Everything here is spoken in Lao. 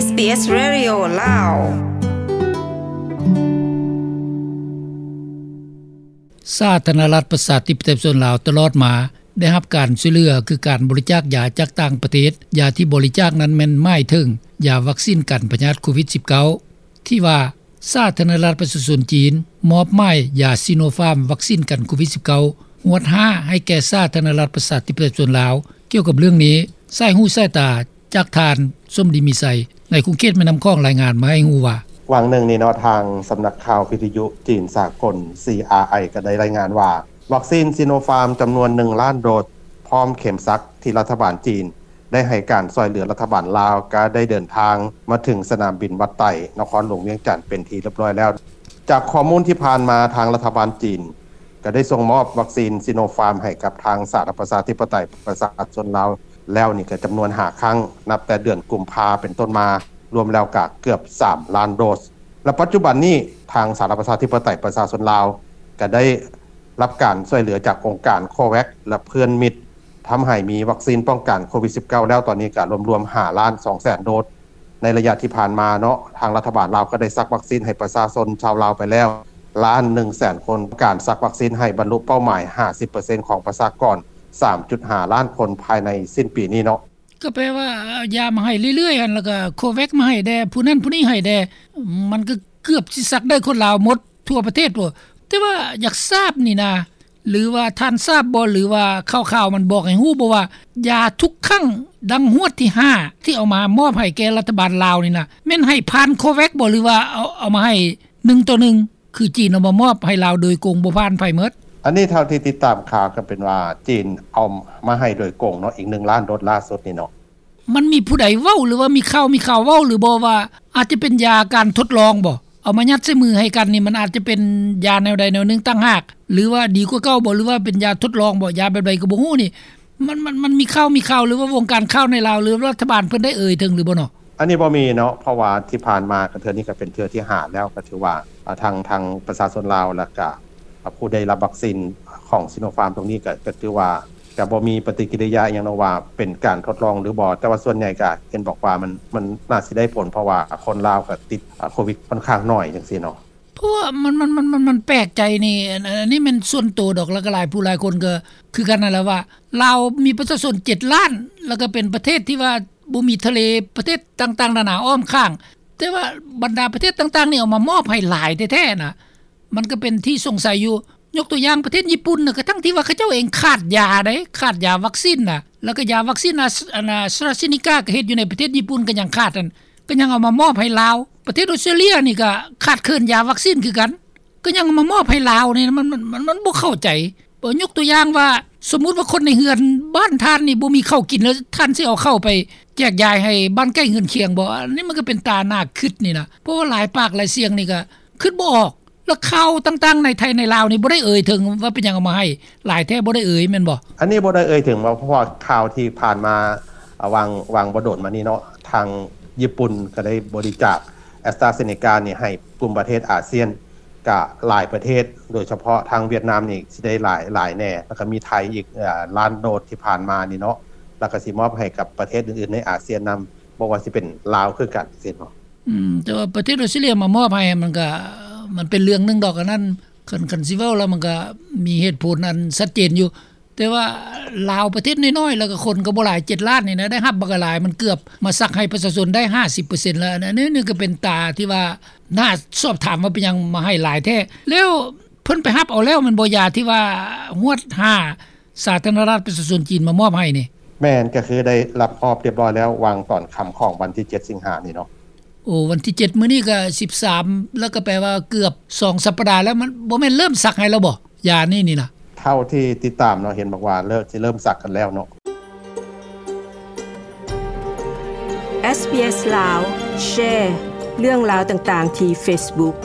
ເອສບີເອສ Radio ລາວ. ສາທາລະນະລັດ ປະຊາທິປະໄຕ ປະຊາຊົນລາວ ຕະຫຼອດມາ ໄດ້ຮັບການຊ່ວຍເຫຼືອ ຄືການບໍລິຈາກຢາຈາກຕ່າງປະເທດ. ຢາທີ່ບໍລິຈາກນັ້ນແມ່ນໝາຍເຖິງຢາວັກຊີນກັນພະຍາດໂຄວິດສິບເກົ້າ ທີ່ວ່າສາທາລະນະລັດປະຊາຊົນຈີນ ມອບໝາຍຢາຊີໂນຟາມ ວັກຊີນກັນໂຄວິດສິບເກົ້າ ຮວດຫ້າ ໃຫ້ແກ່ສາທາລະນະລັດປະຊາທິປະໄຕປະຊາຊົນລາວ. ກ່ຽວກັບເລື່ອງນີ້ ສາຍຫູສາຍຕາຈາກທ່ານ ສົມດີ ມີໄຊ ໃນຂົງເຂດແມ່ນ້ຳຂອງ ລາຍງານມາໃຫ້ຮູ້ວ່າ ຫວ່າງໜຶ່ງນີ້ເນາະ ທາງສຳນັກຂ່າວວິທະຍຸຈີນສາກົນ ຊີອາໄອ ກໍໄດ້ລາຍງານວ່າ ວັກຊີນຊີໂນຟາມຈຳນວນໜຶ່ງລ້ານໂດສ ພ້ອມເຂັມສັກ ທີ່ລັດຖະບານຈີນ ໄດ້ໃຫ້ການຊ່ວຍເຫຼືອລັດຖະບານລາວ ກໍໄດ້ເດີນທາງມາເຖິງສະໜາມບິນວັດໄຕ ນະຄອນຫຼວງວຽງຈັນ ເປັນທີ່ຮຽບຮ້ອຍແລ້ວ. ຈາກຂໍ້ມູນທີ່ຜ່ານມາ ທາງລັດຖະບານຈີນກໍໄດ້ສົ່ງມອບວັກຊີນຊີໂນຟາມໃຫ້ກັບທາງສາທາລະນະລັດປະຊາທິປະໄຕປະຊາຊົນລາວແລ້ວນີ້ກໍຈຳນວນຫ້າຄັ້ງ ນັບແຕ່ເດືອນກຸມພາເປັນຕົ້ນມາ ລວມແລ້ວກໍເກືອບສາມລ້ານໂດສ ແລະ ປັດຈຸບັນນີ້ທາງສາທາລະນະລັດປະຊາທິປະໄຕປະຊາຊົນລາວກໍໄດ້ ຮັບການຊ່ວຍເຫຼືອຈາກອົງການໂຄແວັກ ແລະ ເພື່ອນມິດ ທຳໃຫ້ມີວັກຊີນປ້ອງກັນໂຄວິດສິບເກົ້າແລ້ວ ຕອນນີ້ກໍລວມໆຫ້າລ້ານສອງແສນໂດສ. ໃນໄລຍະທີ່ຜ່ານມາເນາະ ທາງລັດຖະບານລາວກໍໄດ້ສັກວັກຊີນໃຫ້ປະຊາຊົນຊາວລາວໄປແລ້ວລ້ານໜຶ່ງແສນຄົນ, ການສັກວັກຊີນໃຫ້ບັນລຸເປົ້າໝາຍຫ້າສິບເປີເຊັນຂອງປະຊາກອນສາມຈຸດຫ້າລ້ານຄົນພາຍໃນສິ້ນປີນີ້ເນາະ. ກໍແປວ່າເອົາຢາມາໃຫ້ເລື້ອຍໆຫັ້ນ ແລ້ວກໍໂຄແວັກມາໃຫ້ແດ່ ຜູ້ນັ້ນຜູ້ນີ້ໃຫ້ແດ່ ມັນກໍເກືອບຊິສັກໄດ້ຄົນລາວໝົດທົ່ວປະເທດພຸ້ນ. ແຕ່ວ່າຢາກຊາບນີ້ນະ ຫຼືວ່າທ່ານຊາບບໍ່ ຫຼືວ່າຂ່າວໆມັນບອກໃຫ້ຮູ້ບໍ່ວ່າ ຢາທຸກຄັ້ງ ດັ່ງຮວດທີຫ້າ ທີ່ເອົາມາມອບໃຫ້ແກ່ລັດຖະບານລາວນີ້ນະ ແມ່ນໃຫ້ຜ່ານໂຄແວັກບໍ່ ຫຼືວ່າເອົາ ເອົາມາໃຫ້ໜຶ່ງຕໍ່ໜຶ່ງ ຄືຈີນເອົາມາມອບໃຫ້ລາວໂດຍກົງ ບໍ່ຜ່ານໃຜໝົດ. ອັນນີ້ເທົ່າທີ່ຕິດຕາມຂ່າວກໍເປັນວ່າ ຈີນເອົາມາໃຫ້ໂດຍກົງເນາະ ອີກໜຶ່ງລ້ານໂດສລ່າສຸດນີ້ເນາະ. ມັນມີຜູ້ໃດເວົ້າ ຫຼືວ່າມີຂ່າວ ມີຂ່າວເວົ້າ ຫຼືບໍ່ວ່າ ອາດຈະເປັນຢາການທົດລອງບໍ່? ເອົາມາຍັດໃສ່ມືໃຫ້ກັນນີ້ ມັນອາດຈະເປັນຢາແນວໃດແນວໜຶ່ງຕ່າງຫາກ ຫຼືວ່າດີກວ່າເກົ່າບໍ່ ຫຼືວ່າເປັນຢາທົດລອງບໍ່? ຢາແບບໃດກໍບໍ່ຮູ້ນີ້ ມັນ ມັນ ມັນມີຂ່າວ ມີຂ່າວ ຫຼືວ່າວົງການຂ່າວໃນລາວ ຫຼືລັດຖະບານເພິ່ນໄດ້ເອີ່ຍເຖິງຫຼືບໍ່ເນາະ? ອັນນີ້ບໍ່ມີເນາະ ເພາະວ່າທີ່ຜ່ານມາກໍເທື່ອນີ້ກໍເປັນເທື່ອທີຫ້າແລ້ວ ກໍຖືວ່າ ອາ ທາງ ທາງປະຊາຊົນລາວ ແລ້ວກະ ອາ ຜູ້ໄດ້ຮັບວັກຊີນຂອງຊີໂນຟາມຕົງນີ້ ກະ ກະຖືວ່າຈະບໍ່ມີປະຕິກິລິຍາອີ່ຫຍັງເນາະວ່າເປັນການທົດລອງຫຼືບໍ່ ແຕ່ວ່າສ່ວນໃຫຍ່ກະເຫັນບອກວ່າມັນ ມັນໜ້າຊິໄດ້ຜົນ ເພາະວ່າຄົນລາວກະຕິດ ອາ ໂຄວິດຂ້ອນຂ້າງໜ້ອຍຈັ່ງຊີ້ເນາະ. ເພາະວ່າມັນ ມັນ ມັນ ມັນ ມັນແປກໃຈນີ້ ອັນ ອັນນີ້ແມ່ນສ່ວນໂຕດອກ ແລ້ວກໍຫຼາຍຜູ້ຫຼາຍຄົນກໍຄືກັນນັ້ນແຫຼະວ່າ ລາວມີປະຊາຊົນເຈັດລ້ານ ແລ້ວກໍເປັນປະເທດທີ່ວ່າບໍ່ມີທະເລ ປະເທດຕ່າງໆນານາອ້ອມຂ້າງ ແຕ່ວ່າບັນດາປະເທດຕ່າງໆນີ້ເອົາມາມອບໃຫ້ຫຼາຍແທ້ໆນະ ມັນກໍເປັນທີ່ສົງໄສຢູ່. ຍົກຕົວຢ່າງປະເທດຍີ່ປຸ່ນນະ ກະທັ່ງທີ່ວ່າເຂົາເຈົ້າເອງຂາດຢາເດ້ ຂາດຢາວັກຊີນນະ ແລ້ວກໍຢາວັກຊີນອາສ ອັນ ອາສຕຣາເຊນີກາ ກໍເຮັດຢູ່ໃນປະເທດຍີ່ປຸ່ນກໍຍັງຂາດຫັ້ນ ກໍຍັງເອົາມາມອບໃຫ້ລາວ. ປະເທດອົດສະຕຣາເລຍນີ້ກໍຂາດເຂີນຢາວັກຊີນຄືກັນ ກໍຍັງເອົາມາມອບໃຫ້ລາວນີ້ ມັນ ມັນ ມັນ ມັນບໍ່ເຂົ້າໃຈ. ຍົກຕົວຢ່າງວ່າ ສົມມຸດວ່າຄົນໃນເຮືອນບ້ານທ່ານນີ້ບໍ່ມີເຂົ້າກິນ ແລ້ວທ່ານຊິເອົາເຂົ້າໄປແຈກຢາຍໃຫ້ບ້ານໃກ້ເຮືອນຄຽງບໍ່? ອັນນີ້ມັນກໍເປັນຕາໜ້າຄິດນີ້ນະ ເພາະວ່າຫຼາຍປາກຫຼາຍສຽງນີ້ກໍຄິດບໍ່ອອກ. ແລ້ວຂ່າວຕ່າງໆໃນໄທໃນລາວນີ້ບໍ່ໄດ້ເອີ່ຍເຖິງວ່າເປັນຫຍັງເອົາມາໃຫ້ຫຼາຍແທ້ ບໍ່ໄດ້ເອີ່ຍແມ່ນບໍ່? ອັນນີ້ບໍ່ໄດ້ເອີ່ຍເຖິງວ່າ ເພາະວ່າຂ່າວທີ່ຜ່ານມາ ອາ ຫວ່າງ ຫວ່າງບໍ່ດົນມານີ້ເນາະ ທາງຍີ່ປຸ່ນກໍໄດ້ບໍລິຈາກແອັສຕຣາເຊນີການີ້ໃຫ້ກຸ່ມປະເທດອາຊຽນ ກະຫຼາຍປະເທດ ໂດຍສະເພາະທາງຫວຽດນາມນີ້ຊິໄດ້ຫຼາຍ ຫຼາຍແດ່ ແລ້ວກໍມີໄທອີກ ອາ ລ້ານໂດສທີ່ຜ່ານມານີ້ເນາະ ແລ້ວກໍຊິມອບໃຫ້ກັບປະເທດອື່ນໆໃນອາຊຽນນຳ ບໍ່ວ່າຊິເປັນລາວຄືກັນຊີ້ເນາະ. ອືມ ແຕ່ວ່າປະເທດອົດສະຕຣາເລຍມາມອບໃຫ້ ມັນກະ ມັນເປັນເລື່ອງໜຶ່ງດອກ ອັນນັ້ນ ຄັນ ຄັນຊິເວົ້າແລ້ວມັນກະມີເຫດຜົນອັນຊັດເຈນຢູ່ ແຕ່ວ່າລາວປະເທດນ້ອຍໆ ແລ້ວກະຄົນກໍບໍ່ຫຼາຍ ເຈັດລ້ານນີ້ນະ ໄດ້ຮັບບັກຫຼາຍ ມັນເກືອບມາສັກໃຫ້ປະຊາຊົນໄດ້ຫ້າສິບເປີເຊັນແລ້ວ. ອັນນີ້ ນີ້ກໍເປັນຕາທີ່ວ່າໜ້າສອບຖາມວ່າເປັນຫຍັງມາໃຫ້ຫຼາຍແທ້ ແລ້ວເພິ່ນໄປຮັບເອົາແລ້ວແມ່ນບໍ່ ຢາທີ່ວ່າຮວດຫ້າ ສາທາລະນະລັດປະຊາຊົນຈີນມາມອບໃຫ້ນີ້? ແມ່ນ ກໍຄືໄດ້ຮັບຮອບຮຽບຮ້ອຍແລ້ວ ຫວ່າງຕອນຄ່ຳຂອງວັນທີເຈັດສິງຫານີ້ເນາະ. ໂອ້ ວັນທີເຈັດ ມື້ນີ້ກໍສິບສາມ ແລ້ວກໍແປວ່າເກືອບສອງສັບປະດາແລ້ວ ມັນບໍ່ແມ່ນເລີ່ມສັກໃຫ້ແລ້ວບໍ່ ຢານີ້ນີ້ນະ? ເທົ່າທີ່ຕິດຕາມເນາະ ເຫັນບອກວ່າເລີ່ມ ຊິເລີ່ມສັກກັນແລ້ວເນາະ. ເອສບີເອສ ລາວ ແຊເລື່ອງລາວຕ່າງໆທີ່ເຟສບຸກ.